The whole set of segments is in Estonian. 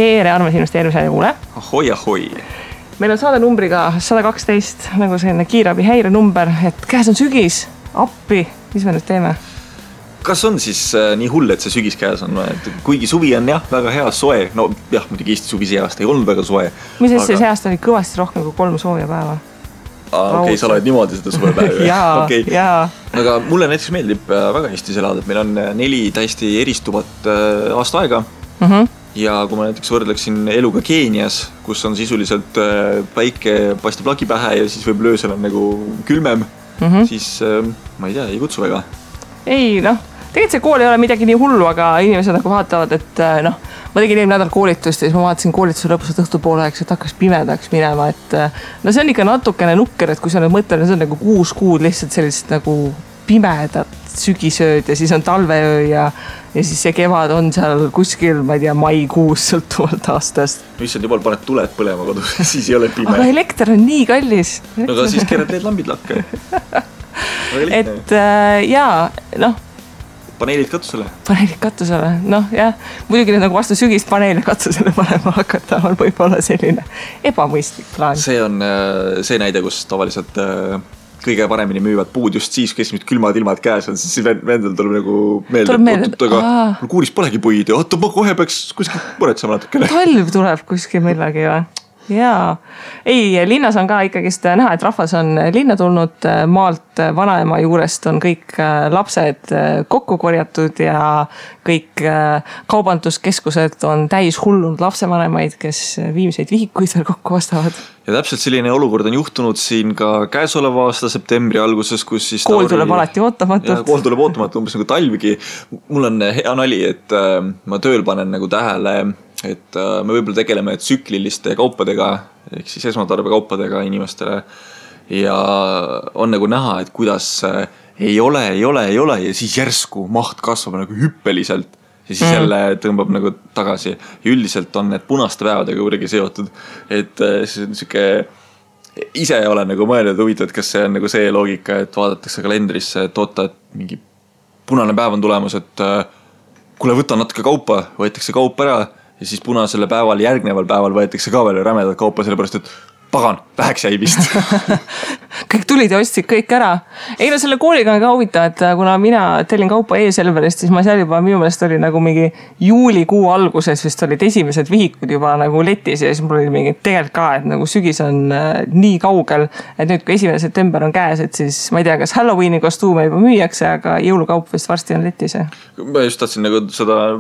tere armas investeerimise kuule. Ahoi. Meil on saade numbriga 112, nagu selline kiirabi häire number, et käes on sügis, appi, mis me nüüd teeme? Kas on siis nii hull, et see sügis käes on? Kuigi suvi on jah, väga hea soe. No jah, muidugi Eesti suvi see aasta ei olnud väga soe. Mis aga... see aasta oli kõvasti rohkem kui 3 sooja päeva? Okei, sa oled niimoodi seda suvepäeva. jaa. Aga mulle näiteks meeldib väga Eestis elada, et meil on 4 täiesti eristuvat aasta aega. Ja kui ma näiteks võrdleksin eluga Keenias, kus on sisuliselt päike paistab lagi pähe ja siis võib öösel on nagu külmem, siis ma ei tea, ei kutsu väga. Ei, tegelikult see kool ei ole midagi nii hullu, aga inimesed nagu vaatavad, et ma tegin eelmine nädal koolitust ja siis ma vaatasin koolituse lõpus õhtupooleks, et hakkas pimedaks minema, et see on ikka natukene nukker, et kui sa nüüd mõtled, see on nagu 6 kuud lihtsalt sellist nagu pimedat sügisööd ja siis on talveöö ja siis see kevad on seal kuskil, ma ei tea, maikuus sõltuvalt aastast. Issand jumal, paned tuled põlema kodus, siis ei ole pime. Aga elekter on nii kallis. Aga siis keerad need lambid lakke. Et jaa, Paneelid katusele. Jah. Muidugi nüüd nagu vastu sügist paneele katusele panema hakata on võib-olla selline ebamõistlik plaan. See on see näide, kus tavaliselt kõige paremini müüvad puud just siis, kes nüüd külmad ilmad käes on, siis vendel tuleb nagu meelde, aga mul kuuris polegi puid ja ma kohe peaks kuskil muretsema natukene. Talv tuleb kuskil millegi või? Jaa. Ei, linnas on ka ikkagist näha, et rahvas on linna tulnud maalt, vanaema juurest on kõik lapsed kokku korjatud ja kõik kaubanduskeskused on täis hullunud lapsevanemaid, kes viimseid vihikuid veel kokku ostavad. Ja täpselt selline olukord on juhtunud siin ka käesoleva aasta septembri alguses, kus siis kool tuleb alati ootamatult. Kool tuleb ootamatult, umbes nagu talvigi. Mul on hea nali, et ma tööl panen nagu tähele, et me võib-olla tegeleme tsükliliste kaupadega, ehk siis esmatarbekaupadega inimestele ja on nagu näha, et kuidas ei ole ja siis järsku maht kasvab nagu hüppeliselt ja siis jälle tõmbab nagu tagasi ja üldiselt on need punaste päevadega kuidagi seotud, et see on siuke ise olen nagu mõelnud huvitav, et kas see on nagu see loogika, et vaadatakse kalendrisse, et oota, et mingi punane päev on tulemus, et kuule võta natuke kaupa, võetakse kaup ära ja siis punasele päeval, järgneval päeval võetakse ka veel rämedad kaupa, sellepärast, et pagan, väheks jäi vist. Kõik tulid ja ostsid kõik ära. Ei, selle kooliga on ka huvitav, et kuna mina tellin kaupa e-Selverist, siis ma seal juba minu meelest oli nagu mingi juulikuu alguses vist olid esimesed vihikud juba nagu letis ja siis mul oli mingi tegelikult ka, et nagu sügis on nii kaugel, et nüüd kui 1. september on käes, et siis ma ei tea, kas Halloweeni kostuume juba müüakse, aga jõulukaup vist varsti on letis. Ma just tahtsin nagu seda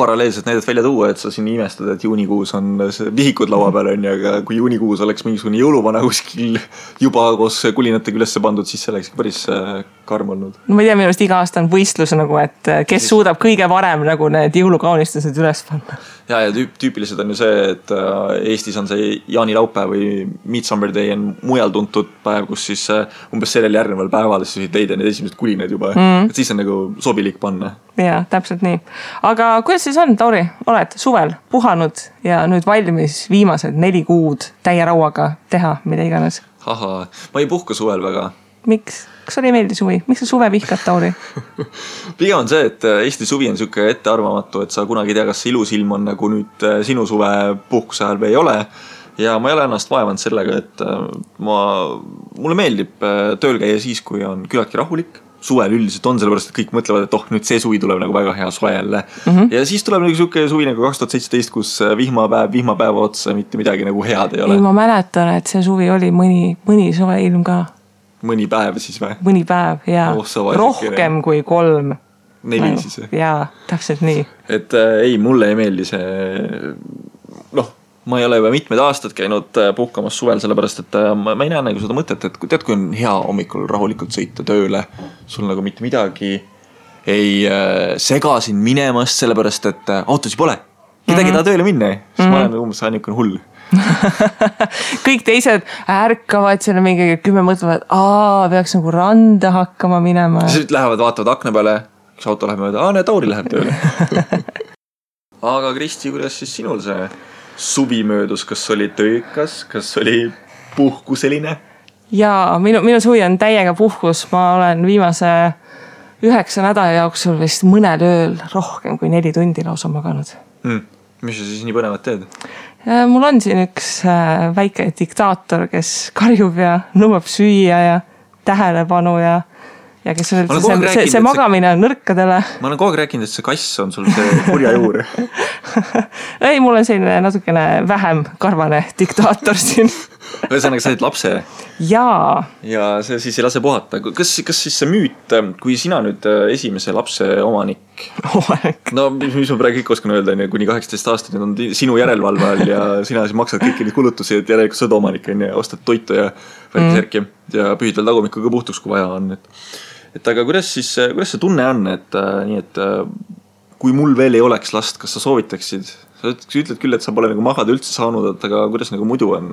paralleelselt näidet välja tuua, et sa siin imestad, et juunikuus on vihikud laua peal on ja aga kui juunikuus oleks mingisugune jõuluvana kuskil juba koos kulinatega ülesse pandud, siis see oleks päris karm olnud. No ma ei tea, minu arust iga aasta on võistlus nagu, et kes suudab kõige varem nagu need jõulukaunistused üles panna. Ja tüüpiliselt on ju see, et Eestis on see jaanilaupäev või Midsummer Day on mujal tuntud päev, kus siis umbes sellel järgneval päeval siis leida need esimesed kulinad juba. Et siis on nagu sobilik panna. Jaa, täpselt nii. Aga kuidas siis on, Tauri? Oled suvel puhanud ja nüüd valmis viimased 4 kuud täie rauaga teha, mida iganes? Aha, ma ei puhka suvel väga. Miks? Kas oli meeldi suvi? Miks sa suve vihkad, Tauri? Pigem on see, et Eesti suvi on siuke ettearvamatu, et sa kunagi tea, kas see ilus ilm on nagu nüüd sinu suve puhkuse ajal või ei ole. Ja ma ei ole ennast vaevanud sellega, et mulle meeldib tööl käia siis, kui on küllaltki rahulik. Suvel üldiselt on, sellepärast, et kõik mõtlevad, et nüüd see suvi tuleb nagu väga hea soe jälle. Ja siis tuleb nagu siuke suvi nagu 2017, kus vihmapäeva otsa mitte midagi nagu head ei ole. Ei, ma mäletan, et see suvi oli mõni soe ilm ka. Mõni päev siis või? Mõni päev, jaa. Rohkem kui 3. 4 siis. Jaa, täpselt nii. Et ei, mulle ei meeldi see, ma ei ole juba mitmed aastad käinud puhkamas suvel, sellepärast, et ma ei näe nagu seda mõtet, et tead, kui on hea hommikul rahulikult sõita tööle, sul nagu mitte midagi ei sega siin minemast, sellepärast, et autosi pole. Kedagi taha tööle minna, siis ma olen umbes ainukene hull. Kõik teised ärkavad selle mingi 10 mõtlevad, peaks nagu randa hakkama minema. Siis lähevad, vaatavad akna peale, üks auto läheb mööda, näe, Tauri läheb tööle. Aga Kristi, kuidas siis sinul see suvi möödus, kas oli töökas, kas oli puhkuseline? Jaa, minu suvi on täiega puhkus. Ma olen viimase 9 nädala jooksul vist mõnel ööl rohkem kui 4 tundi lausa maganud. Mis sa siis nii põnevat teed? Mul on siin üks väike diktaator, kes karjub ja nõuab süüa ja tähelepanu ja kes on see magamine on nõrkadele. Ma olen kogu aeg rääkinud, et see kass on sul see kurja juur. Ei, mul on selline natukene vähem karvane diktaator siin. Ühesõnaga, sa oled lapse. Jaa. Ja see siis ei lase puhata. Kas siis see müüt, kui sina nüüd esimese lapse omanik, no mis ma praegu kõik oskan öelda, kuni 18 aastat on sinu järelevalve all ja sina siis maksad kõiki neid kulutusi, et järelikult sa oled omanik, ostad toitu ja värkisärki ja pühid veel tagumikuga puhtuks, kui vaja on. Et aga kuidas see tunne on, et kui mul veel ei oleks last, kas sa soovitaksid? Sa ütled küll, et sa pole nagu magada üldse saanud, aga kuidas nagu muidu on?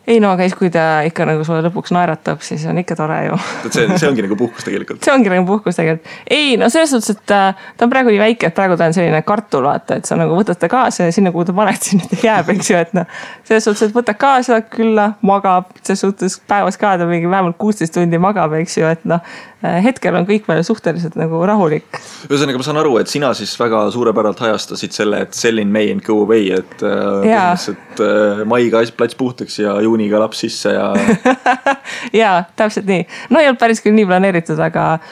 Ei no, aga kui ta ikka nagu sulle lõpuks naeratab, siis on ikka tore ju. See ongi nagu puhkus tegelikult. See ongi nagu puhkus tegelikult. Ei, no selles suhtes, et ta on praegu nii väike, et praegu ta on selline kartul, vaata, et sa nagu võtad ta kaasa ja sinna, kuhu ta paned, sinna ta jääb, eks ju, et selles suhtes, et võtad kaasa külla, magab, selles suhtes päevas ka ta mingi vähemalt 16 tundi magab, eks ju, et hetkel on kõik veel suhteliselt nagu rahulik. Ühesõnaga, ma saan aru, et sina siis väga suurepäralt hajastasid selle, et sell in May and go away, et maiga plats puhtaks ja juuniga laps sisse ja... Jaa, täpselt nii. No ei olnud päris küll nii planeeritud, aga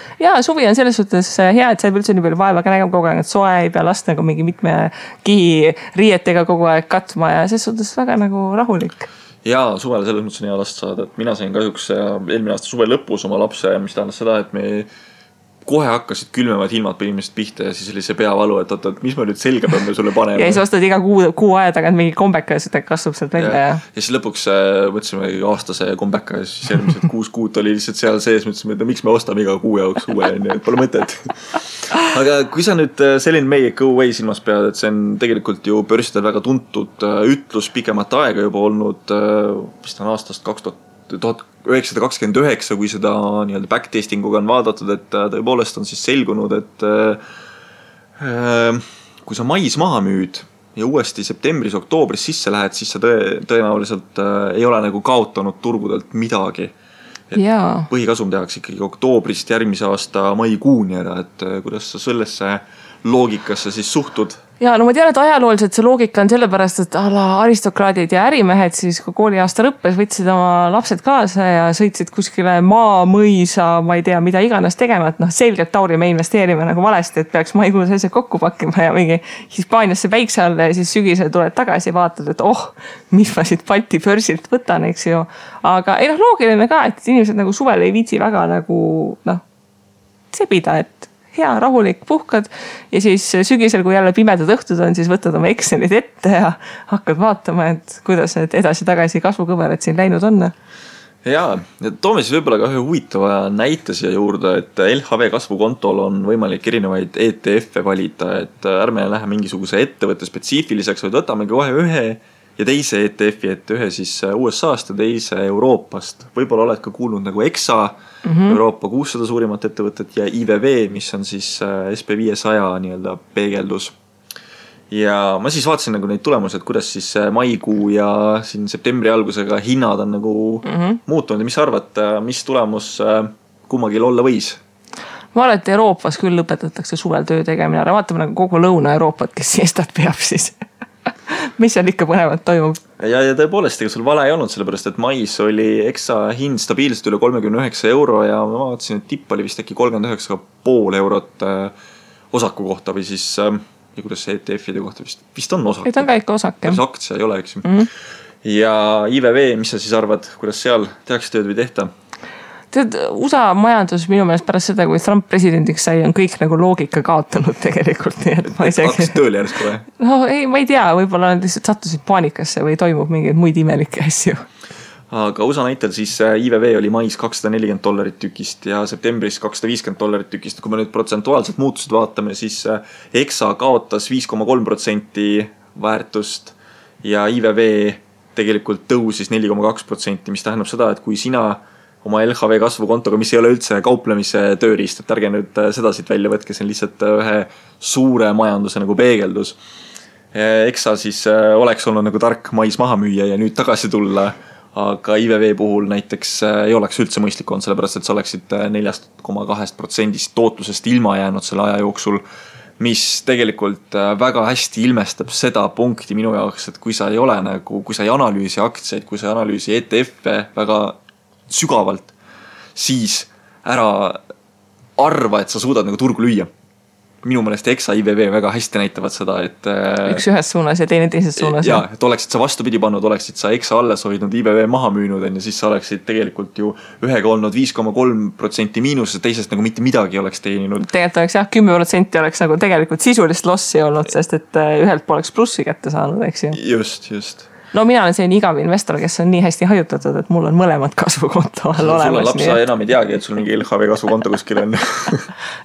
suvi on selles suhtes hea, et sa ei üldse nii palju vaeva ka nägema kogu aeg, et soe ei pea last nagu mingi mitme kihi riietega kogu aeg katma ja selles suhtes väga nagu rahulik. Jaa, suvele selles mõttes on hea last saada, et mina sain kahjuks eelmine aasta suve lõpus oma lapse, mis tähendas seda, et me kohe hakkasid külmevad ilmad põhimõtteliselt pihta ja siis oli see peavalu, et mis ma nüüd selga peame sulle panema. Ja siis ostad iga kuu aja tagant mingi kombeka ja seda kasvab sealt välja. Ja siis lõpuks mõtlesime aastase kombeka ja siis järgmised 6 kuud oli lihtsalt seal sees, mõtlesime, et miks me ostame iga kuu jaoks uue, et pole mõtet. Aga kui sa nüüd selline May Go Away silmas pead, et see on tegelikult ju börsidel väga tuntud ütlus pikemat aega juba olnud, vist on aastast 1929, kui seda nii-öelda backtestinguga on vaadatud, et tõepoolest on siis selgunud, et kui sa mais maha müüd ja uuesti septembris-oktoobris sisse lähed, siis sa tõenäoliselt ei ole nagu kaotanud turgudelt midagi. Põhikasum tehakse ikkagi oktoobrist järgmise aasta maikuuni ära, et kuidas sa sellesse loogikasse siis suhtud? Ja no ma tean, et ajalooliselt see loogika on sellepärast, et aristokraadid ja ärimehed siis, kui kooliaasta lõppes, võtsid oma lapsed kaasa ja sõitsid kuskile mõisa, ma ei tea, mida iganes tegema, et selgelt Tauri me investeerime nagu valesti, et peaks maikuus asjad kokku pakkima ja mingi Hispaaniasse päikse alla ja siis sügisel tuled tagasi ja vaatad, et mis ma siit Balti börsilt võtan, eks ju. Aga ei loogiline ka, et inimesed nagu suvel ei viitsi väga nagu sebida, et hea, rahulik, puhkad ja siis sügisel, kui jälle pimedad õhtud on, siis võtad oma Excelid ette ja hakkad vaatama, et kuidas need edasi-tagasi kasvukõverad siin läinud on. Jaa, toome siis võib-olla ka ühe huvitava näite siia juurde, et LHV kasvukontol on võimalik erinevaid ETF-e valida, et ärme lähe mingisuguse ettevõtte spetsiifiliseks, vaid võtamegi kohe ühe ja teise ETF-i, et ühe siis USA-st ja teise Euroopast. Võib-olla oled ka kuulnud nagu EXA, Euroopa 600 suurimat ettevõtet ja IVV, mis on siis SP500 nii-öelda peegeldus. Ja ma siis vaatasin nagu neid tulemusi, et kuidas siis maikuu ja siin septembri algusega hinnad on nagu muutunud ja mis arvad, mis tulemus kummagil olla võis? Ma arvan, et Euroopas küll lõpetatakse suvel töö tegemine, aga vaatame nagu kogu Lõuna-Euroopat, kes siestat peab siis. Mis seal ikka põnevat toimub? Ja tõepoolest, ega sul vale ei olnud, sellepärast, et mais oli EXA hind stabiilselt üle 39 euro ja ma vaatasin, et tipp oli vist äkki 39,5 eurot osaku kohta või siis, ja kuidas see ETF-ide kohta vist on osak. Et on ka ikka osak, jah. Aktsia ei ole, eks. Ja IVV, mis sa siis arvad, kuidas seal tehakse tööd või tehta? USA majandus minu meelest pärast seda, kui Trump presidendiks sai, on kõik nagu loogika kaotanud tegelikult. Hakkasid tööle järsku või? No ei, ma ei tea, võib-olla nad lihtsalt sattusid paanikasse või toimub mingeid muid imelikke asju. Aga USA näitel siis IVV oli mais $240 tükist ja septembris $250 tükist. Kui me nüüd protsentuaalselt muutused vaatame, siis EXA kaotas 5,3% väärtust ja IVV tegelikult tõusis 4,2%, mis tähendab seda, et kui sina oma LHV kasvukontoga, mis ei ole üldse kauplemise tööriist, et ärge nüüd seda siit välja võtke, see on lihtsalt ühe suure majanduse nagu peegeldus. EXA siis oleks olnud nagu tark mais maha müüa ja nüüd tagasi tulla, aga IVV puhul näiteks ei oleks üldse mõistlik olnud, sellepärast et sa oleksid 4,2% tootlusest ilma jäänud selle aja jooksul, mis tegelikult väga hästi ilmestab seda punkti minu jaoks, et kui sa ei ole nagu, kui sa ei analüüsi aktsiaid, kui sa ei analüüsi ETF-e väga sügavalt, siis ära arva, et sa suudad nagu turgu lüüa. Minu meelest EXA IVV väga hästi näitavad seda, et üks ühes suunas ja teine teises suunas. Ja, et oleksid sa vastupidi pannud, oleksid sa EXA alles hoidnud, IVV maha müünud, ja siis sa oleksid tegelikult ju ühega olnud 5,3% miinus, teisest nagu mitte midagi oleks teeninud. Tegelikult oleks jah, 10% oleks nagu tegelikult sisulist lossi olnud, sest et ühelt poleks plussi kätte saanud, eks ju. Just. No mina olen selline igav investor, kes on nii hästi hajutatud, et mul on mõlemad kasvukonto all olemas. Sul on laps, sa enam ei teagi, et sul mingi LHV kasvukonto kuskil on.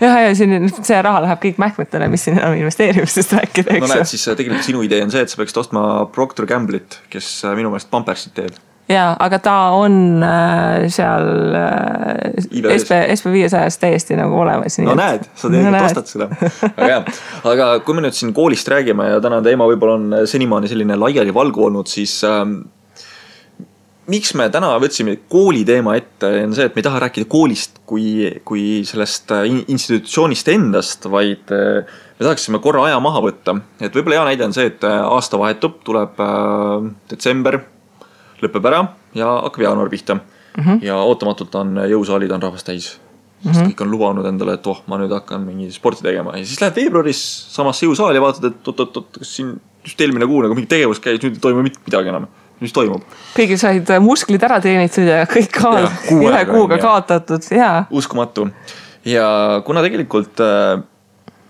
ja see raha läheb kõik mähkmetele, mis siin enam investeerimisest rääkida. No näed, siis tegelikult sinu idee on see, et sa peaksid ostma Procter Gamble'it, kes minu meelest Pampersit teeb. Jaa, aga ta on seal SP500 täiesti nagu olemas. No näed, sa tegelikult ostad seda. Aga kui me nüüd siin koolist räägime ja täna teema võib-olla on senimaani selline laiali valgu olnud, siis miks me täna võtsime kooli teema ette, on see, et me ei taha rääkida koolist kui sellest institutsioonist endast, vaid me tahaksime korra aja maha võtta. Et võib-olla hea näide on see, et aasta vahetub, tuleb detsember, lõpeb ära ja hakkab jaanuar pihta. Ja ootamatult on jõusaalid on rahvast täis. Sest kõik on lubanud endale, et ma nüüd hakkan mingi sporti tegema. Ja siis lähed veebruaris samasse jõusaali ja vaatad, et kas siin just eelmine kuu nagu mingi tegevus käis, nüüd ei toimu midagi enam. Mis toimub? Kõigil said musklid ära teenitud ja kõik ühe kuuga kaotatud. Uskumatu. Ja kuna tegelikult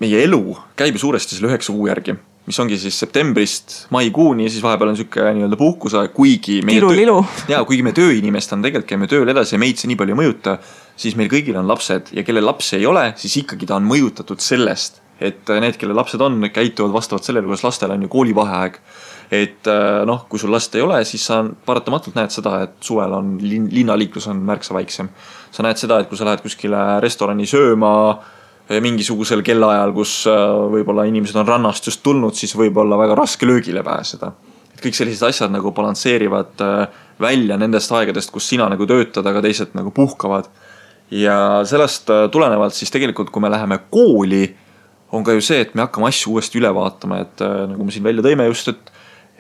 meie elu käib suuresti selle 9 kuu järgi, mis ongi siis septembrist maikuuni, siis vahepeal on siuke nii-öelda puhkuse, kuigi me tööinimest on tegelikult käime tööl edasi ja meid see nii palju ei mõjuta, siis meil kõigil on lapsed ja kelle lapsi ei ole, siis ikkagi ta on mõjutatud sellest, et need, kelle lapsed on, käituvad vastavalt sellele, kuidas lastel on ju koolivaheaeg. Et kui sul last ei ole, siis sa paratamatult näed seda, et suvel on linnaliiklus on märksa väiksem. Sa näed seda, et kui sa lähed kuskile restorani sööma mingisugusel kellaajal, kus võib-olla inimesed on rannast just tulnud, siis võib-olla väga raske löögile pääseda. Et kõik sellised asjad nagu balansseerivad välja nendest aegadest, kus sina nagu töötad, aga teised nagu puhkavad. Ja sellest tulenevalt siis tegelikult, kui me läheme kooli, on ka ju see, et me hakkame asju uuesti üle vaatama, et nagu me siin välja tõime just,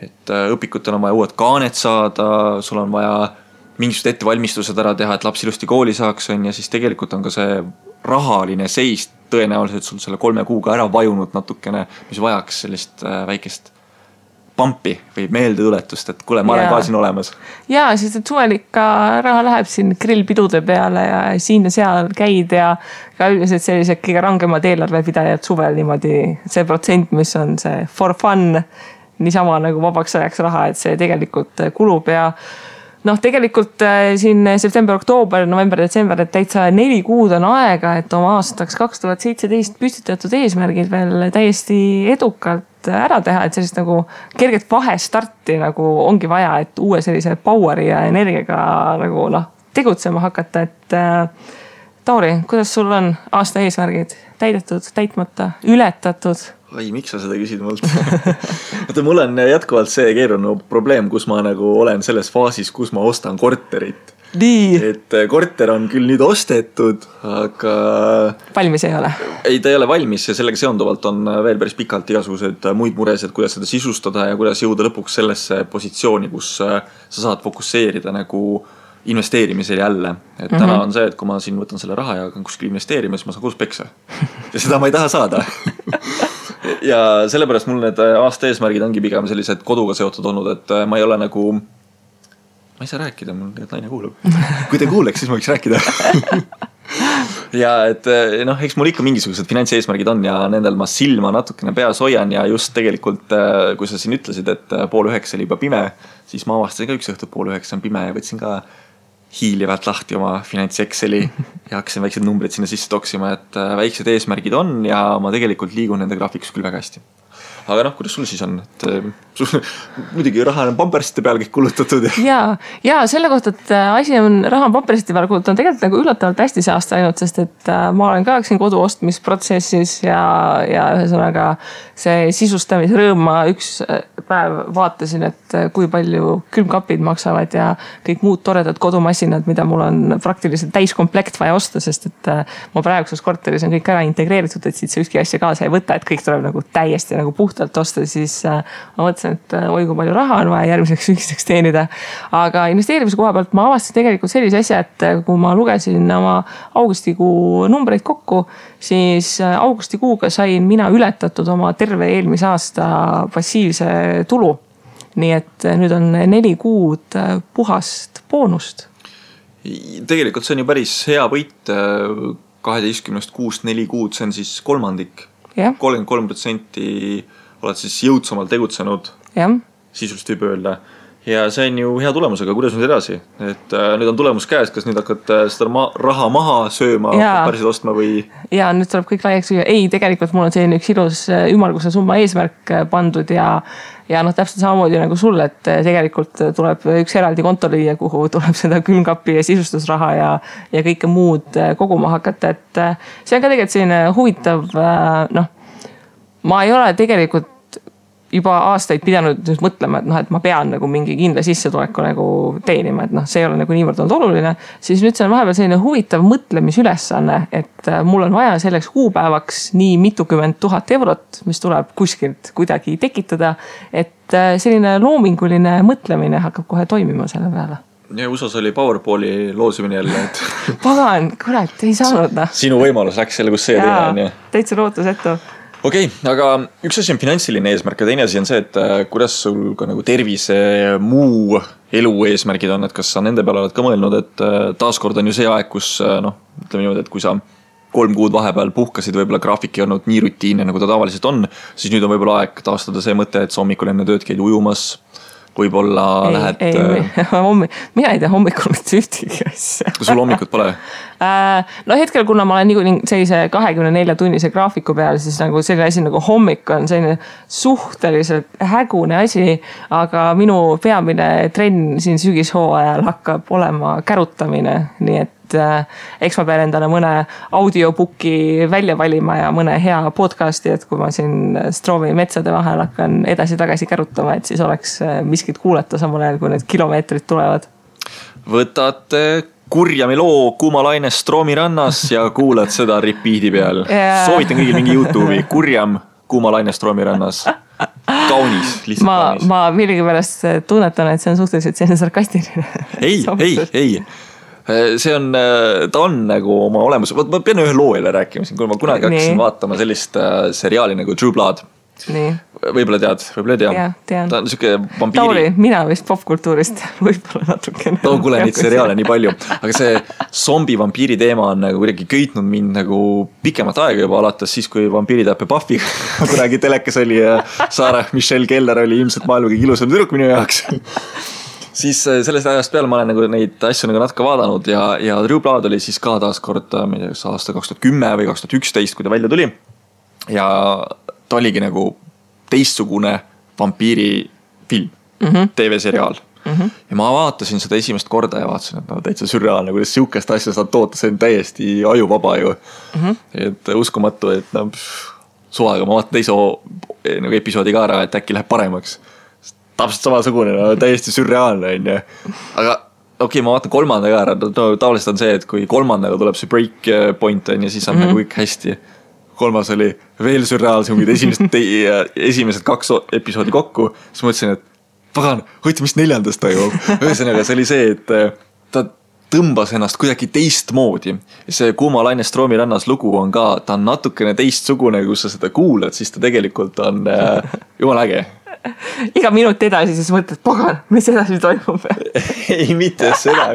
et õpikutel on vaja uued kaanet saada, sul on vaja mingisugused ettevalmistused ära teha, et laps ilusti kooli saaks, ja siis tegelikult on ka see rahaline seis tõenäoliselt sul selle 3 kuuga ära vajunud natukene, mis vajaks sellist väikest pampi või meeldetuletust, et kuule, ma olen ka siin olemas. Jaa, sest et suvel ikka raha läheb siin grillpidude peale ja siin ja seal käid ja ka üldiselt sellised kõige rangemad eelarvepidajad suvel niimoodi see protsent, mis on see for fun, niisama nagu vabaks ajaks raha, et see tegelikult kulub ja tegelikult siin september, oktoober, november, detsember, et täitsa 4 kuud on aega, et oma aastaks 2017 püstitatud eesmärgid veel täiesti edukalt ära teha, et sellist nagu kerget vahestarti nagu ongi vaja, et uue sellise poweri ja energiaga nagu tegutsema hakata, et Tauri, kuidas sul on aasta eesmärgid täidetud, täitmata, ületatud? Ai, miks sa seda küsid mult? Mul on jätkuvalt see keeruline probleem, kus ma nagu olen selles faasis, kus ma ostan korterit. Nii. Et korter on küll nüüd ostetud, aga valmis ei ole? Ei, ta ei ole valmis ja sellega seonduvalt on veel päris pikalt igasugused muid muresed, kuidas seda sisustada ja kuidas jõuda lõpuks sellesse positsiooni, kus sa saad fokusseerida nagu investeerimisel jälle. Et täna on see, et kui ma siin võtan selle raha ja hakkan kuskil investeerima, siis ma saan kodus peksa. Ja seda ma ei taha saada. Ja sellepärast mul need aasta eesmärgid ongi pigem sellised koduga seotud olnud, et ma ei ole nagu, ma ei saa rääkida, mul tegelikult naine kuulab. Kui te kuuleks, siis ma võiks rääkida. Ja et eks mul ikka mingisugused finantseesmärgid on ja nendel ma silma natukene peas hoian ja just tegelikult, kui sa siin ütlesid, et 8:30 oli juba pime, siis ma avastasin ka üks õhtu 8:30 on pime ja võtsin ka hiilivalt lahti oma finants-Exceli ja hakkasin väiksed numbrid sinna sisse toksima, et väiksed eesmärgid on ja ma tegelikult liigun nende graafikus küll väga hästi. aga noh, kuidas sul siis on, et muidugi raha on pampersite peal kõik kulutatud. Ja selle kohta, et asi on raha on pampersite peal kulutatud, on tegelikult nagu üllatavalt hästi see aasta ainult, sest et ma olen ka siin kodu ostmisprotsessis ja ühesõnaga see sisustamisrõõm ma üks päev vaatasin, et kui palju külmkapid maksavad ja kõik muud toredad kodumasinad, mida mul on praktiliselt täiskomplekt vaja osta, sest et ma praeguses korteris on kõik ära integreeritud, et siit see ükski asja kaasa ei võta, et kõik tuleb nagu täiesti nagu puhtalt osta, siis ma mõtlesin, et oi kui palju raha on vaja järgmiseks sügiseks teenida. Aga investeerimise koha pealt ma avastasin tegelikult sellise asja, et kui ma lugesin oma augustikuu numbreid kokku, siis augustikuuga sain mina ületatud oma terve eelmise aasta passiivse tulu. Nii et nüüd on 4 kuud puhast boonust. Tegelikult see on ju päris hea võit 12 kuust 4 kuud, see on siis kolmandik. 33% oled siis jõudsamalt tegutsenud, sisuliselt võib öelda. Ja see on ju hea tulemus, aga kuidas nüüd edasi? Et nüüd on tulemus käes, kas nüüd hakkad seda raha maha sööma, päriselt ostma või? Ja nüüd tuleb kõik laiaks süüa. Ei, tegelikult mul on selline üks ilus ümmarguse summa eesmärk pandud ja noh, täpselt samamoodi nagu sul, et tegelikult tuleb üks eraldi konto lüüa, kuhu tuleb seda külmkapi ja sisustusraha ja kõike muud koguma hakata, et see on ka tegelikult selline huvitav, noh, ma ei ole tegelikult juba aastaid pidanud nüüd mõtlema, et noh, et ma pean nagu mingi kindla sissetuleku nagu teenima, et noh, see ei ole nagu niivõrd olnud oluline, siis nüüd see on vahepeal selline huvitav mõtlemisülesanne, et mul on vaja selleks kuupäevaks nii mitukümmend 1000 eurot, mis tuleb kuskilt kuidagi tekitada, et selline loominguline mõtlemine hakkab kohe toimima selle peale. Ja USAs oli Powerballi loosimine jälle, et pagan, kurat, ei saanud noh. Sinu võimalus läks selle, kus see teine on. Täitsa lootusetu. Okei, aga üks asi on finantsiline eesmärk ja teine asi on see, et kuidas sul ka nagu tervise muu elu eesmärgid on, et kas sa nende peale oled ka mõelnud, et taaskord on ju see aeg, kus noh, ütleme niimoodi, et kui sa 3 kuud vahepeal puhkasid, võib-olla graafik ei olnud nii rutiinne, nagu ta tavaliselt on, siis nüüd on võib-olla aeg taastada see mõte, et sa hommikul enne tööd käid ujumas, võib-olla lähed... Mina ei tea hommikul mitte ühtegi asja. Sul hommikut pole? No hetkel, kuna ma olen nii sellise 24 tunnise graafiku peal, siis nagu selline asi nagu hommik on selline suhteliselt hägune asi, aga minu peamine trenn siin sügishooajal hakkab olema kärutamine, nii et eks ma pean endale mõne audiobuki välja valima ja mõne hea podcasti, et kui ma siin Stroomi metsade vahel hakkan edasi-tagasi kärutama, et siis oleks miskit kuulata samal ajal, kui need kilomeetrid tulevad. Võtate Kurjami loo Kuuma laine Stroomi rannas ja kuulad seda repeat'i peal. Soovitan kõigil mingi YouTube'i Kurjam Kuuma laine Stroomi rannas. Kaunis, lihtsalt kaunis. Ma millegi pärast tunnetan, et see on suhteliselt selline sarkastiline. Ei. See on, ta on nagu oma olemus, ma pean ühe loo jälle rääkima siin, kui ma kunagi hakkasin vaatama sellist seriaali nagu True Blood. Nii. Võib-olla tead, võib-olla ei tea. Ja, tean. Ta on siuke vampiiri. Tauri, mina vist popkultuurist võib-olla natukene. No kuule, neid seriaale nii palju. Aga see zombi vampiiri teema on nagu kuidagi köitnud mind nagu pikemat aega juba alates siis, kui vampiiri täppe Buffy kunagi telekas oli ja Sarah Michelle Keller oli ilmselt maailma kõige ilusam tüdruk minu jaoks. Siis sellest ajast peale ma olen nagu neid asju nagu natuke vaadanud ja True Blood oli siis ka taaskord aasta 2010 või 2011, kui ta välja tuli. Ja ta oligi nagu teistsugune vampiiri film, TV-seriaal. Ja ma vaatasin seda esimest korda ja vaatasin, et no täitsa sürreaalne, kuidas siukest asja saad toota, see on täiesti ajuvaba ju. Et uskumatu, et no, suvaga ma vaatan teise nagu episoodi ka ära, et äkki läheb paremaks. Täpselt samasugune, no, täiesti sürreaalne on ju. Aga okei, ma vaatan kolmandaga ära, tavaliselt on see, et kui kolmandaga tuleb see break point on ja siis on nagu kõik hästi. Kolmas oli veel sürreaalsem, kui esimesed 2 episoodi kokku, siis mõtlesin, et pagan, hoiti mis 4. toimub. Ühesõnaga, see oli see, et ta tõmbas ennast kuidagi teistmoodi. See Kuuma laine Stroomi rannas lugu on ka, ta on natukene teistsugune, kus sa seda kuulad, siis ta tegelikult on jumal äge. Iga minut edasi siis mõtled, pagan, mis edasi toimub? Ei, mitte seda.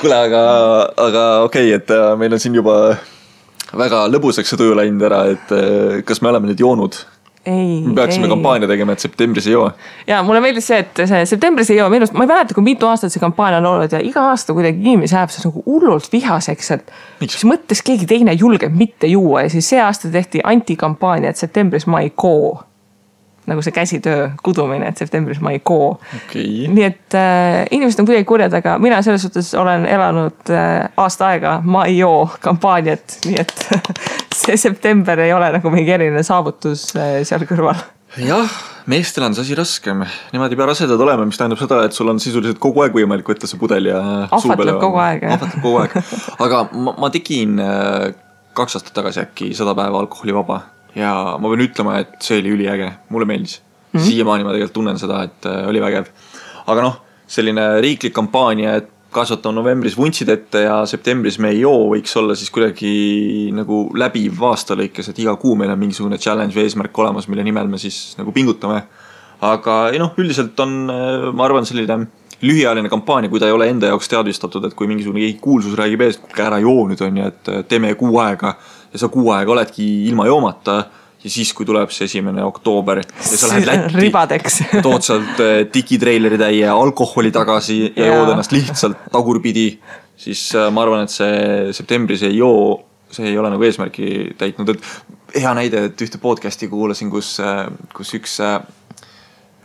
Kuule, aga okei, et meil on siin juba väga lõbuseks see tuju läinud ära, et kas me oleme nüüd joonud Me peaksime kampaania tegema, et septembris ei joo. Ja mulle meeldis see, et see septembris ei joo. Minu, ma ei mäleta, kui mitu aastat see kampaania on olnud ja iga aasta kuidagi inimesi läheb see nagu hullult vihaseks, et siis mõttes keegi teine julgeb mitte juua ja siis see aasta tehti antikampaania, et septembris ma ei koo. Nagu see käsitöö kudumine, et septembris ma ei koo. Okay. Nii et inimesed on kuidagi kurjad, aga mina selles suhtes olen elanud aasta aega ma ei joo kampaaniat, nii et see september ei ole nagu mingi eriline saavutus seal kõrval. Jah, meestel on see asi raskem. Nemad ei pea rasedad olema, mis tähendab seda, et sul on sisuliselt kogu aeg võimalik võtta see pudel ja ahvatleb kogu aeg. Ahvatleb kogu aeg. Aga ma tegin 2 aastat tagasi äkki 100 päeva alkoholivaba. Ja ma võin ütlema, et see oli üliäge. Mulle meeldis. Siiamaani ma tegelikult tunnen seda, et oli vägev. Aga noh, selline riiklik kampaania, et kasvatame novembris vuntsid ette ja septembris me ei joo, võiks olla siis kuidagi nagu läbiv aasta lõikes, et iga kuu meil on mingisugune challenge või eesmärk olemas, mille nimel me siis nagu pingutame. Aga noh, üldiselt on, ma arvan, selline lühiajaline kampaania, kui ta ei ole enda jaoks teadvistatud, et kui mingisugune kuulsus räägib ees, kui ära joo nüüd on ja et teeme kuu aega ja sa kuu aega oledki ilma joomata ja siis, kui tuleb see 1. oktoober ja sa lähed Lätti, ribadeks. tood sealt digitreileri täie alkoholi tagasi ja jood ennast lihtsalt tagurpidi, siis ma arvan, et see septembris ei joo, see ei ole nagu eesmärki täitnud. Et hea näide, et ühte podcasti kuulasin, kus üks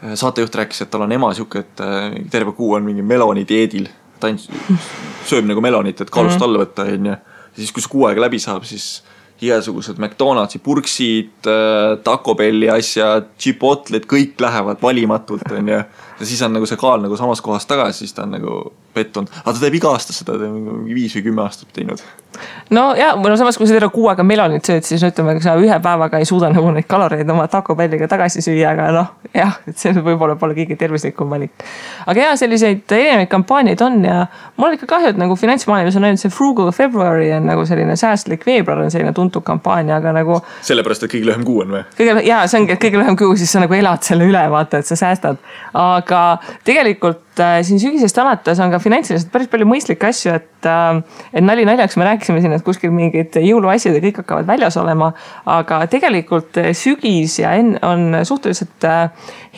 saatejuht rääkis, et tal on ema siuke, et terve kuu on mingi meloni dieedil. Ta sööb nagu melonit, et kaalust alla võtta. Ja siis, kui see kuu aega läbi saab, siis igasugused McDonaldsi purksid, Taco Belli asjad, Chipotle'd, kõik lähevad valimatult. Ja siis on nagu see kaal nagu samas kohas tagasi, siis ta on nagu pettunud. Aga ta teeb iga aasta seda, ta on 5 või 10 aastat teinud. No ja, samas kui sa terve kuu aega melonit sööd, siis ütleme, kui sa ühe päevaga ei suuda nagu neid kaloreid oma Taco Belliga tagasi süüa, aga noh, jah, et see võib-olla pole kõige tervislikum valik. Aga jah, selliseid erinevaid kampaaniaid on ja mul on ikka kahju, et nagu finantsmaailmas on ainult see Frugal February on nagu selline säästlik veebruar on selline tuntud kampaania, aga nagu sellepärast, et kõige lühem kuu on või? Jaa, see ongi, et kõige lühem kuu, siis sa nagu elad selle üle, vaata, et sa säästad. Aga tegelikult siin sügisest alates on ka finantsiliselt päris palju mõistlikke asju, et nali naljaks me rääkisime siin, et kuskil mingid jõuluasjad ja kõik hakkavad väljas olema, aga tegelikult sügis ja on suhteliselt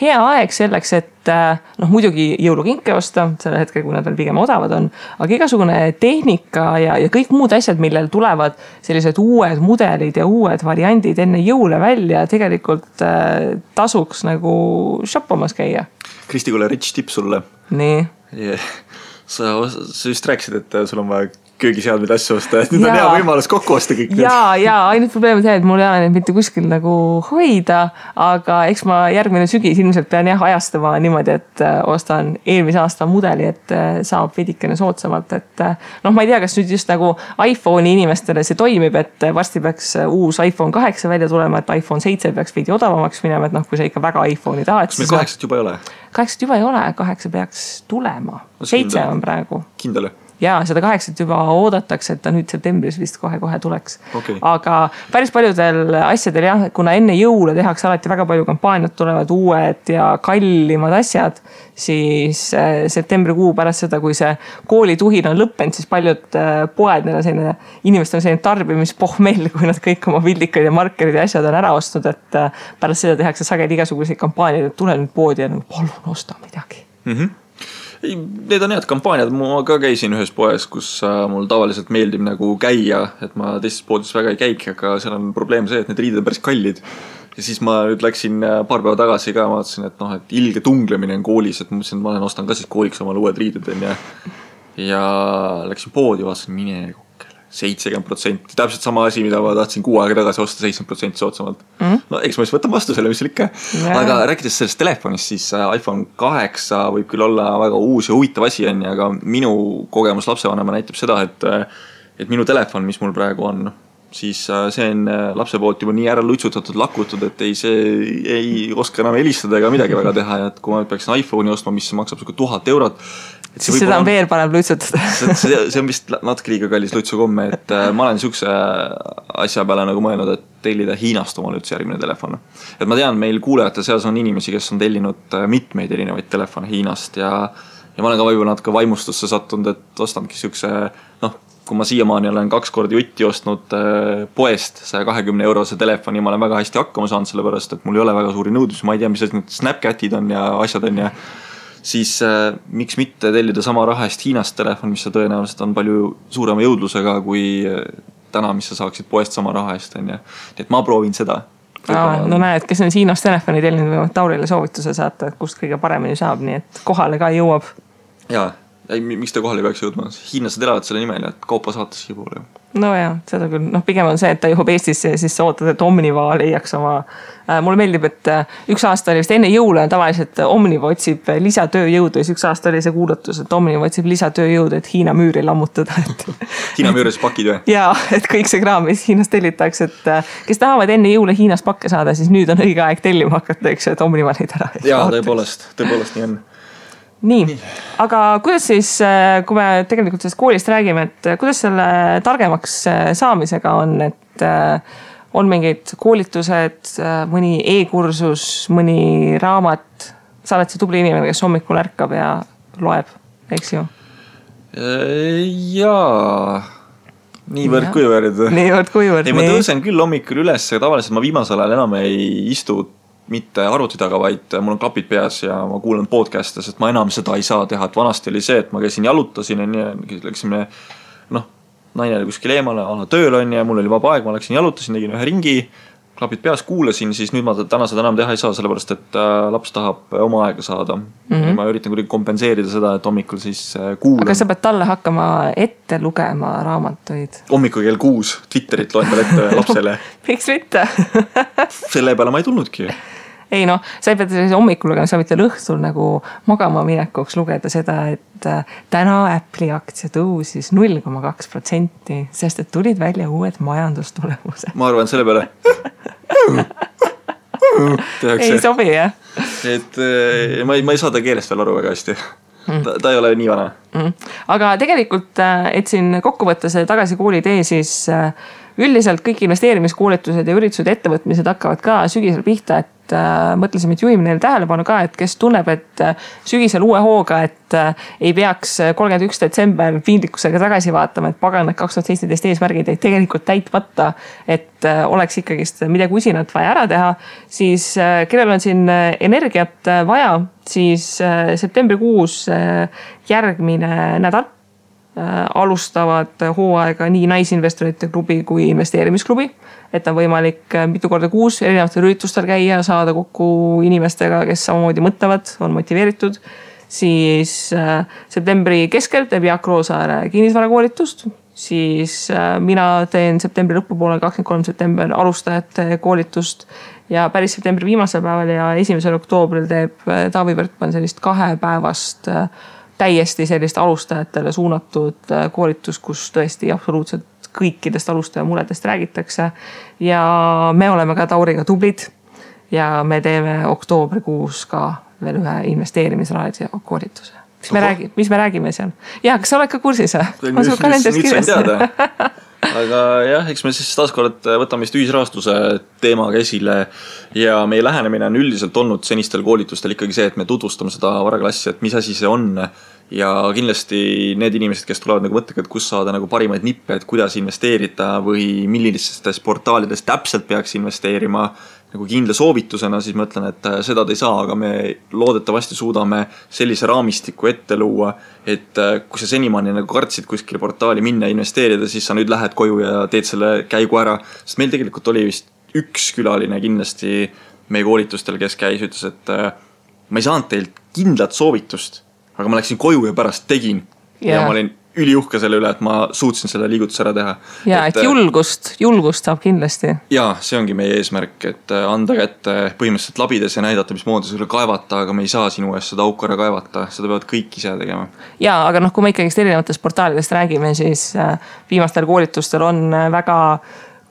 hea aeg selleks, et noh, muidugi jõulukinke osta, selle hetkel, kui nad veel pigem odavad on, aga igasugune tehnika ja kõik muud asjad, millel tulevad sellised uued mudelid ja uued variandid enne jõule välja, tegelikult tasuks nagu shoppamas käia. Kristi, kuule rich tip sulle. Nii. Yeah. Sa just rääkisid, et sul on vaja köögiseadmeid asju osta, et nüüd on hea võimalus kokku osta kõik. Ja ainult probleem on see, et mul ei ole neid mitte kuskil nagu hoida, aga eks ma järgmine sügis ilmselt pean ajastama niimoodi, et ostan eelmise aasta mudeli, et saab veidikene soodsamalt, et noh, ma ei tea, kas nüüd just nagu iPhone'i inimestele see toimib, et varsti peaks uus iPhone 8 välja tulema, et iPhone 7 peaks veidi odavamaks minema, et noh, kui sa ikka väga iPhone'i tahad. Kas meil 8 juba ei ole? 8 juba ei ole, 8 peaks tulema. 7 on praegu. Kindel? Ja seda 8 juba oodatakse, et ta nüüd septembris vist kohe tuleks. Okay. Aga päris paljudel asjadel jah, kuna enne jõule tehakse alati väga palju kampaaniat, tulevad uued ja kallimad asjad, siis septembrikuu pärast seda, kui see koolituhin on lõppenud, siis paljud poed, inimestel on selline tarbimispohmell, kui nad kõik oma vildikad ja markerid ja asjad on ära ostnud, et pärast seda tehakse sageli igasuguseid kampaaniaid, et tule nüüd poodi ja nagu, palun osta midagi. Need on head kampaaniad, ma ka käisin ühes poes, kus mul tavaliselt meeldib nagu käia, et ma teistes poodides väga ei käik, aga seal on probleem see, et need riided on päris kallid. Ja siis ma nüüd läksin paar päeva tagasi ka, ma vaatasin, et noh, et ilge tunglemine on koolis, et ma mõtlesin, et ma ostan ka siis kooliks omale uued riided ja läksin poodi, vaatasin mine 70%, täpselt sama asi, mida ma tahtsin kuu aega tagasi osta 70% soodsamalt. No eks ma siis võtan vastu selle, mis seal ikka. Aga rääkides sellest telefonist, siis iPhone 8 võib küll olla väga uus ja huvitav asi, aga minu kogemus lapsevanema näitab seda, et minu telefon, mis mul praegu on, siis see on lapse poolt juba nii ära lutsutatud, lakutud, et see ei oska enam helistada ega midagi väga teha. Ja et kui ma peaksin iPhone'i ostma, mis maksab 1000 eurot, siis seda on veel parem lutsutada. see on vist natuke liiga kallis lutsukomme, et ma olen niisuguse asja peale nagu mõelnud, et tellida Hiinast omale üldse järgmine telefon. Et ma tean, meil kuulajate seas on inimesi, kes on tellinud mitmeid erinevaid telefone Hiinast ja ma olen ka võib-olla natuke vaimustusse sattunud, et ostanudki niisuguse kui ma siiamaani olen 2 korda jutti ostnud poest 120 € telefoni, ma olen väga hästi hakkama saanud, sellepärast, et mul ei ole väga suuri nõudlusi, ma ei tea, mis need Snapchatid on ja asjad on ja siis miks mitte tellida sama raha eest Hiinast telefon, mis tõenäoliselt on palju suurema jõudlusega kui täna, mis sa saaksid poest sama raha eest, on ja. Nii et ma proovin seda. No näed, kes on Hiinast telefoni tellinud, võivad Taurile soovituse saata, et kust kõige paremini saab, nii et kohale ka jõuab. Jaa, miks ta kohale peaks jõudma? Hiinlased elavad selle nimel, et kaupa saates siia poole. No jah, seda küll. Pigem on see, et ta jõuab Eestisse ja siis sa ootad, et Omniva leiaks oma... Mulle meeldib, et üks aasta oli vist enne jõule tavaliselt Omniva otsib lisatööjõudu ja üks aasta oli see kuulutus, et Omniva otsib lisatööjõudu, et Hiina müüri lammutada. Hiina müüris pakid või? Jaa, et kõik see kraam, mis Hiinast tellitakse, et kes tahavad enne jõule Hiinas pakke saada, siis nüüd on õige aeg tellima hakata, eks, et Omniva neid ära. Jaa, tõepoolest nii on. Nii, aga kuidas siis, kui me tegelikult sellest koolist räägime, et kuidas selle targemaks saamisega on, et on mingid koolitused, mõni e-kursus, mõni raamat, sa oled see tubli inimene, kes hommikul ärkab ja loeb, eks ju? Jaa, niivõrd kuivõrd. Ei, ma tõusen küll hommikul üles, tavaliselt ma viimasel ajal enam ei istu mitte arvuti taga, vaid mul on klapid peas ja ma kuulan podcast'e, sest ma enam seda ei saa teha, et vanasti oli see, et ma käisin jalutasin ja läksime, naine oli kuskil eemale, tööl on ja mul oli vaba aeg, ma läksin jalutasin, tegin ühe ringi, klapid peas kuulasin, siis nüüd ma täna seda enam teha ei saa, sellepärast, et laps tahab oma aega saada. Ma üritan kuidagi kompenseerida seda, et hommikul siis kuulan. Aga sa pead talle hakkama ette lugema raamatuid? Hommikul kell 6 Twitterit loen talle ette lapsele. Miks mitte? Selle peale ma ei tulnudki. Ei sa ei pea hommikul lugema, sa võid õhtul nagu magama minekuks lugeda seda, et täna Apple'i aktsia tõusis 0,2%, sest et tulid välja uued majandustulemused. Ma arvan selle peale. Ei sobi, jah? Et ma ei saa ta keelest veel aru väga hästi. Ta ei ole nii vana. Aga tegelikult, et siin kokku võtta see tagasi kooli tee, siis üldiselt kõik investeerimiskoolitused ja üritused ettevõtmised hakkavad ka sügisel pihta, et mõtlesime, et juhime neile tähelepanu ka, et kes tunneb, et sügisel uue hooga, et ei peaks 31. detsember piinlikkusega tagasi vaatama, et pagan, et 2017 eesmärgid ei tegelikult täitmata, et oleks ikkagist midagi usinat vaja ära teha, siis kellel on siin energiat vaja, siis septembrikuus järgmine nädal alustavad hooaega nii naisinvestorite klubi kui investeerimisklubi, et on võimalik mitu korda kuus erinevatel üritustel käia, saada kokku inimestega, kes samamoodi mõtlevad, on motiveeritud. Siis septembri keskel teeb Jaak Roosaare kinnisvarakoolitust, siis mina teen septembri lõpupoole 23. september alustajate koolitust ja päris septembri viimasel päeval ja 1. oktoobril teeb Taavi Võrkman sellist 2-päevast täiesti sellist alustajatele suunatud koolitus, kus tõesti absoluutselt kõikidest alustaja muredest räägitakse. Ja me oleme ka Tauriga tublid ja me teeme oktoobrikuus ka veel ühe investeerimisraadio koolituse. Mis me räägime seal? Ja, kas sa oled ka kursis? Ma sul kalendris kirjas. Aga jah, eks me siis taaskord võtame vist ühisrahastuse teemaga esile ja meie lähenemine on üldiselt olnud senistel koolitustel ikkagi see, et me tutvustame seda varaklassi, et mis asi see on ja kindlasti need inimesed, kes tulevad nagu mõttega, et kus saada nagu parimaid nippe, et kuidas investeerida või millistes portaalides täpselt peaks investeerima nagu kindla soovitusena, siis ma ütlen, et seda te ei saa, aga me loodetavasti suudame sellise raamistiku ette luua, et kui sa senimaani nagu kartsid kuskile portaali minna ja investeerida, siis sa nüüd lähed koju ja teed selle käigu ära, sest meil tegelikult oli vist üks külaline kindlasti meie koolitustel, kes käis, ütles, et ma ei saanud teilt kindlat soovitust, aga ma läksin koju ja pärast tegin ja ma olin üliuhke selle üle, et ma suutsin selle liigutuse ära teha. Ja, et julgust saab kindlasti. Jaa, see ongi meie eesmärk, et anda kätte põhimõtteliselt labides ja näidata, mis moodi sulle kaevata, aga me ei saa sinu eest seda auku ära kaevata, seda peavad kõik ise tegema. Jaa, aga kui me ikkagist erinevatest portaalidest räägime, siis viimastel koolitustel on väga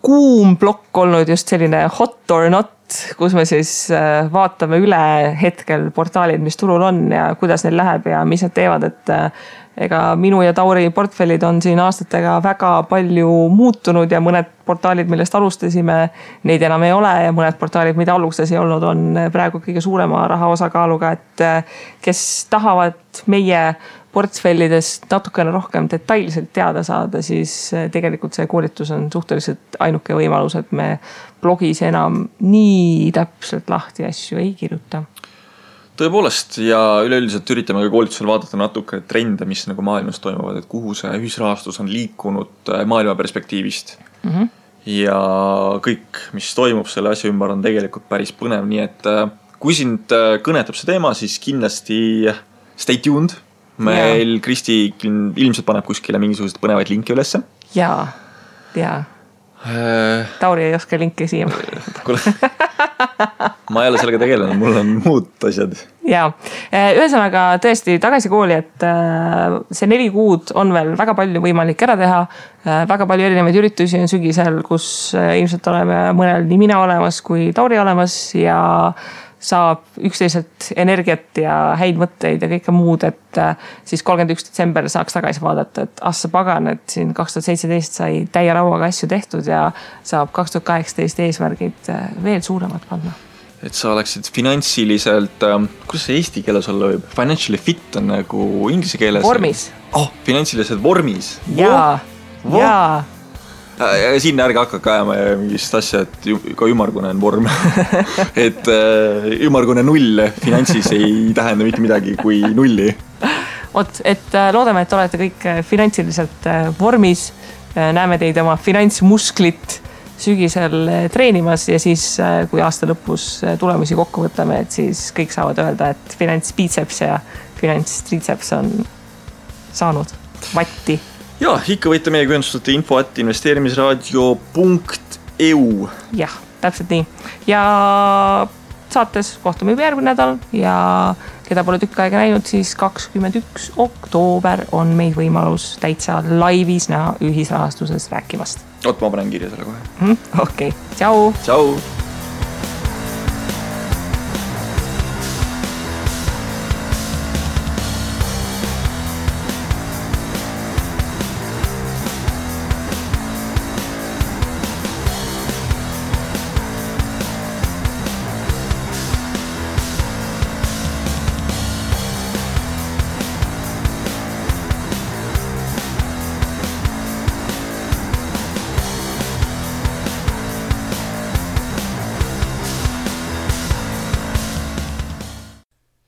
kuum plokk olnud just selline hot or not, kus me siis vaatame üle hetkel portaalid, mis turul on ja kuidas neil läheb ja mis nad teevad, et ega minu ja Tauri portfellid on siin aastatega väga palju muutunud ja mõned portaalid, millest alustasime, neid enam ei ole ja mõned portaalid, mida alustas ei olnud, on praegu kõige suurema raha osakaaluga, et kes tahavad meie portfellidest natukene rohkem detailselt teada saada, siis tegelikult see koolitus on suhteliselt ainuke võimalus, et me blogis enam nii täpselt lahti asju ei kirjuta. Tõepoolest ja üleüldiselt üritame ka koolitusel vaadata natuke trende, mis nagu maailmas toimuvad, et kuhu see ühisrahastus on liikunud maailma perspektiivist. Ja kõik, mis toimub selle asja ümber, on tegelikult päris põnev, nii et kui sind kõnetab see teema, siis kindlasti stay tuned. Meil Kristi ilmselt paneb kuskile mingisugused põnevaid linke ülesse. Jaa. Tauri ei oska linke siia. Ma ei ole sellega tegelenud, mul on muud asjad. Jaa, ühesõnaga tõesti tagasi kooli, et see 4 kuud on veel väga palju võimalik ära teha. Väga palju erinevaid üritusi on sügisel, kus ilmselt oleme mõnel nii mina olemas kui Tauri olemas ja saab üksteiselt energiat ja häid mõtteid ja kõike muud, et siis 31. detsember saaks tagasi vaadata, et assa pagan, et siin 2017 sai täie rauaga asju tehtud ja saab 2018 eesmärgid veel suuremad panna. Et sa oleksid finantsiliselt, kuidas see eesti keeles olla võib? Financially fit on nagu inglise keeles. Vormis. Finantsiliselt vormis. Jaa. Ja siin ärge hakka ajama mingist asja, et ka ümargune on vorm. Et ümargune 0 finantsis ei tähenda mitte midagi kui 0. Et loodame, et olete kõik finantsiliselt vormis. Näeme teid oma finantsmusklit sügisel treenimas ja siis, kui aasta lõpus tulemusi kokku võtame, et siis kõik saavad öelda, et finantsbiceps ja finantstriceps on saanud vatti. Ja, ikka võite meiega ühendustada info@investeerimisraadio.eu. Jah, täpselt nii. Ja saates kohtume juba järgmine nädal ja keda pole tükk aega näinud, siis 21. oktoober on meid võimalus täitsa laivis näha ühisrahastuses rääkimast. Ma panen kirja selle kohe. Okei, tšau! Tšau!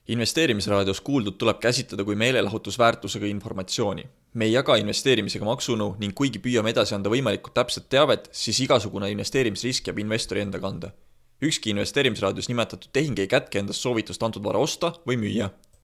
Investeerimisraadios kuuldud tuleb käsitleda kui meelelahutusväärtusega informatsiooni. Me ei jaga investeerimisega maksunõu ning kuigi püüame edasi anda võimalikult täpset teavet, siis igasugune investeerimisrisk jääb investori enda kanda. Ükski investeerimisraadios nimetatud tehing ei kätke endast soovitust antud vara osta või müüa.